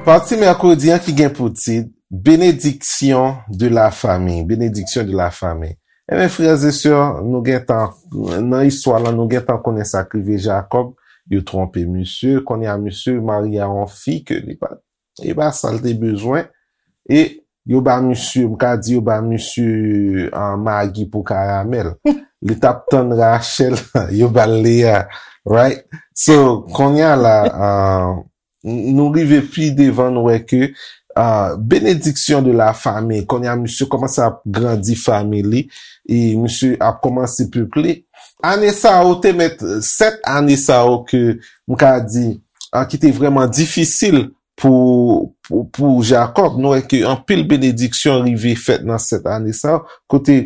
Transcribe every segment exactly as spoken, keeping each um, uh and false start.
Pati mèkredi an ki gen pou tit Bénédiction de la famille. Bénédiction de la famille. Ebyen, frè e sè, nou gentan, nan istwa la, nou gentan konnen sa k rive Jakòb. Yo twonpe misye. Kounye a, misye marye a yon fi ke li pa, e pa sa l te bezwen. E yo ba misye, m ka di yo ba misye, ah, magi pou karamèl. Li t ap tann Rachèl, yo ba l Leya, right? So, kounye a la, ah, n-, nou rive pi devan, nou wè ke, ah, bénédiction de la famille, kounye a misye kòmanse ap grandi fanmi li, e misye ap kòmanse peple. Ane sa yo te mèt, sèt ane sa yo ke m ka di, ah, ki te vrèman difisil pou, pou, pou Jakòb. Nou wè ke anpil benediksyon rive fèt nan sèt ane sa yo, kote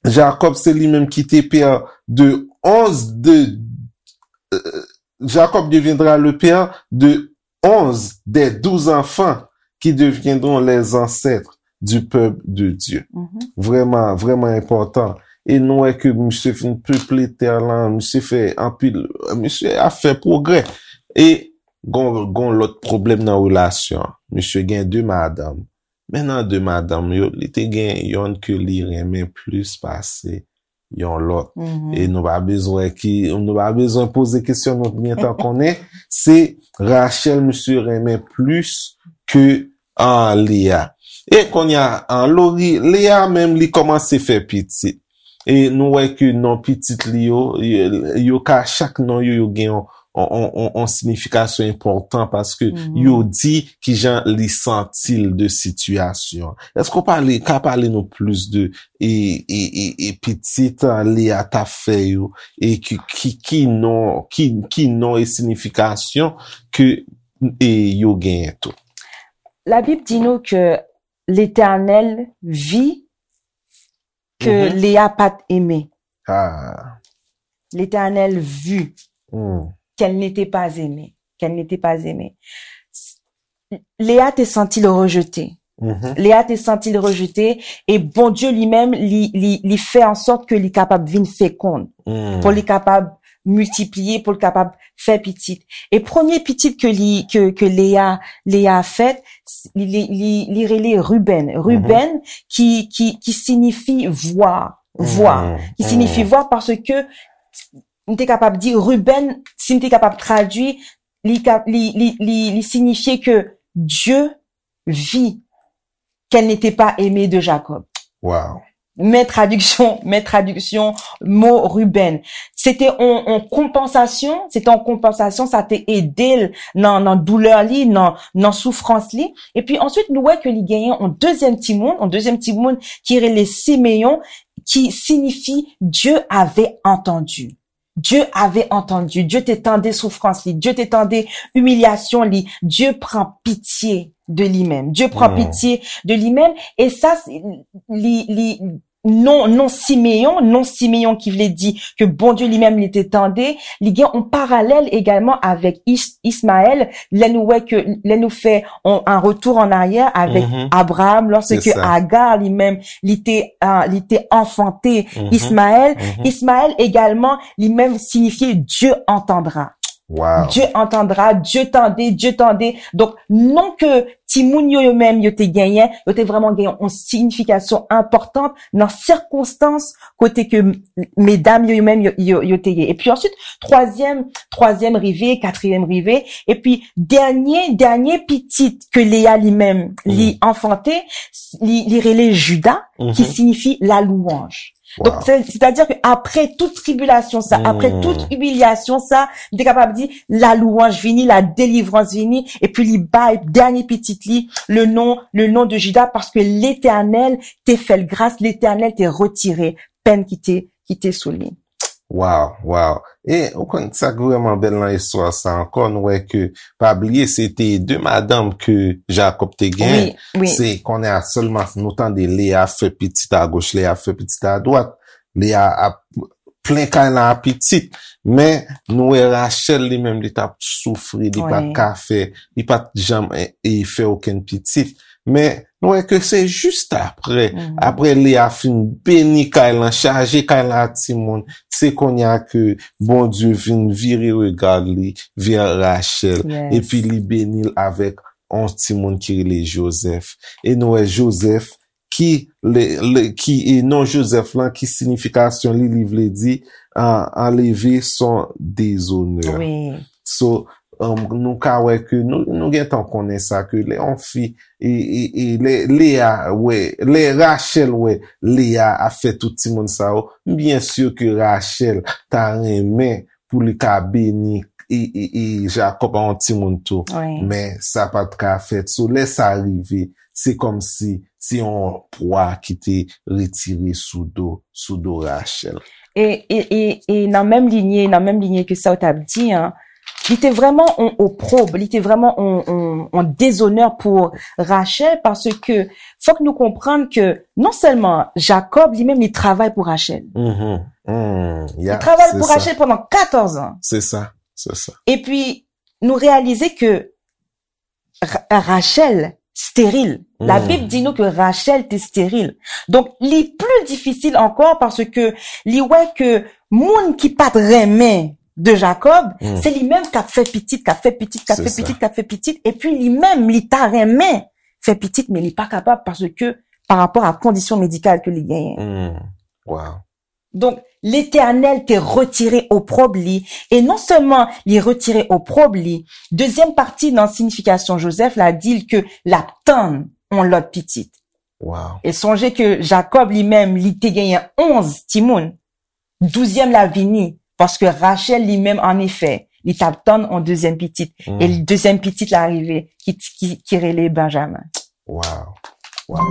Jakòb se li menm ki te pè de onz de, euh, Jacob deviendra le père de onze des douze enfants qui deviendront les ancêtres du peuple de Dieu. Vrèman, vrèman enpòtan. E nou wè ke misye fin peple tè lan, misye fè anpil, misye ap fè pwogrè. E gon, gon lòt pwoblèm nan relasyon an. Misye gen de madanm. Men nan de madanm yo, li te gen yonn ke li renmen plis pase yon lòt. E nou pa bezwen ki, nou pa bezwen poze kesyon, nou gentan konnen, se Rachel misye renmen plis ke, ah, Leya. E kounye a, ah, Lori, Leya menm li kòmanse fè pitit. E nou wè ke non pitit li yo, yo, yo ka, chak non yo, yo gen yon, yon, yon, yon, yon siyifikasyon enpòtan paske yo di kijan li santi l de sitiyasyon. Èske w pale, ka pale nou plis de e, e, e, e pitit, ah, Leya t ap fè yo, e ki, ki, ki non, ki, ki non e siyifikasyon ke, e yo genyen tou? Labib di nou ke Letènèl vi ke Leya pa t enmen. Ah. Letènèl vi qu'elle n'était pas aimée, qu'elle n'était pas aimée. Leya te santi l rejete. Leya te santi l rejete, e Bondye li menm, li, li, li fè an sòt ke li kapab vin fekonn, pou li kapab miltipliye, pou li kapab fè pitit. E premye pitit ke li, ke, ke Leya, Leya fèt, li, li, li, li rele Ruben. Ruben, ki, ki, ki siyifi vwa. Vwa. Ki siyifi vwa paske m te kapab di Ruben, si m te kapab tradui, li, ka- li, li, li, li siyifye ke Dieu vit qu'elle n'était pas aimée de Jacob. Wow. Men tradiksyon, men tradiksyon mo Ruben. Se te on, on konpansasyon, se te on konpansasyon, sa te ede l nan, nan doulè li, nan, nan soufrans li. Epi answit, nou wè ke li genyen on dezyèm timoun, on dezyèm timoun ki rele Simeyon, ki siyifi Dieu avait entendu. Dieu avait entendu, Dieu te tande soufrans li, Dieu te tande imilyasyon li, Dieu pran pitye de li menm. Dieu pran pitye de li menm, e sa, se- li, li, non, non Simeyon, non Simeyon ki vle di ke Bondye li menm li te tande, li gen on paralèl egalman avèk Is- Ismaèl, lè nou wè ke, lè nou fè on, un retour en arrière avec Abraham, lorsque Agar li menm, li te, ah, li te anfante Ismaèl. Ismaèl egalman, li menm siyifye Dieu entendra. Wow. Dieu entendra, Dieu tande, Dieu tande. Donk, non ke timoun yo, yo menm, yo te genyen, yo te vrèman genyen yon siyifikasyon enpòtan nan sikonstans kote ke m- medam yo, yo menm, yo, yo, yo te ye. Epi answit, twazyèm, twazyèm rive, katriyèm rive, epi dènye, dènye pitit ke Leya li menm, li anfante, li, li rele Jida, ki siyifi la louanj. Donk, se- sètadi ke apre tout tribilasyon sa, apre tout imilyasyon sa, m te kapab di, la louanj vini, la delivrans vini, epi li bay dènye pitit li le non, le non de Jida, paske Letènèl te fè l gras, Letènèl te retire pèn ki te, ki te sou li. Wow, wow. E ou konn sa k vrèman bèl nan istwa sa ankò, nou wè ke, pa bliye, se te de madanm ke Jakòb te genyen. Wi, wi. Se kounye a sèlman nou tande Leya ap fè pitit agoch, Leya ap fè pitit adwat. Leya ap plen kay la a pitit. Men nou wè Rachèl li menm, li t ap soufri, li pa t ka fè, li pa t janm e, e fè okenn pitit. Men Nou wè ke se jis apre, apre Leya fin beni kay lan, chaje kay lan ak timoun, se kounye a ke Bondye vin vire regard li vè Rachèl, epi li beni l avèk yon timoun ki rele Jozèf. E nou wè Jozèf ki, le, le, ki, e non Jozèf lan, ki siyifikasyon li, li vle di, an, anleve son dezonè. So, um, nou ka wè ke nou, nou gentan konnen sa, ke lè yon fi, e, e, e lè Leya wè, lè Rachèl wè Leya ap fè tout timoun sa yo, m byen si ke Rachèl ta renmen pou li ka beni e, e, e Jakòb a yon timoun tou. Men sa pa t ka fèt. So, lè sa rive, se kòmsi se yon pwa ki te retire sou do, sou do Rachèl. E, e, e, e nan menm linye, nan menm linye ke sa w t ap di an, li te vrèman yon opwob, li te vrèman yon, yon, yon dezonè pou Rachèl, paske fòk nou konprann ke non sèlman Jakòb, li menm, li travay pou Rachèl. Mm, li travay pou Rachèl pandan katòz an. Se sa, se sa. Epi, nou reyalize ke Rachèl steril. Labib di nou ke Rachèl te steril. Donk, li pli difisil ankò paske li wè ke moun ki pa t renmen de Jakòb, se li menm k ap fè pitit, k ap fè pitit, k ap fè pitit, k ap fè pitit, epi li menm, li ta renmen fè pitit, men li pa kapab paske pa rapò a kondisyon medikal ke li genyen. Wow. Donk, Letènèl te retire opwob li, e non sèlman li retire opwob li, dezyèm pati nan siyifikasyon Jozèf la di l ke l ap tann yon lòt pitit. E sonje ke Jakòb li menm, li te genyen onz timoun. Douzyèm la vini, paske Rachèl li menm, annefè, li t ap tann yon dezyèm pitit. E dezyèm pitit la rive, ki, ki, ki rele Benjamen. Wow. Wow.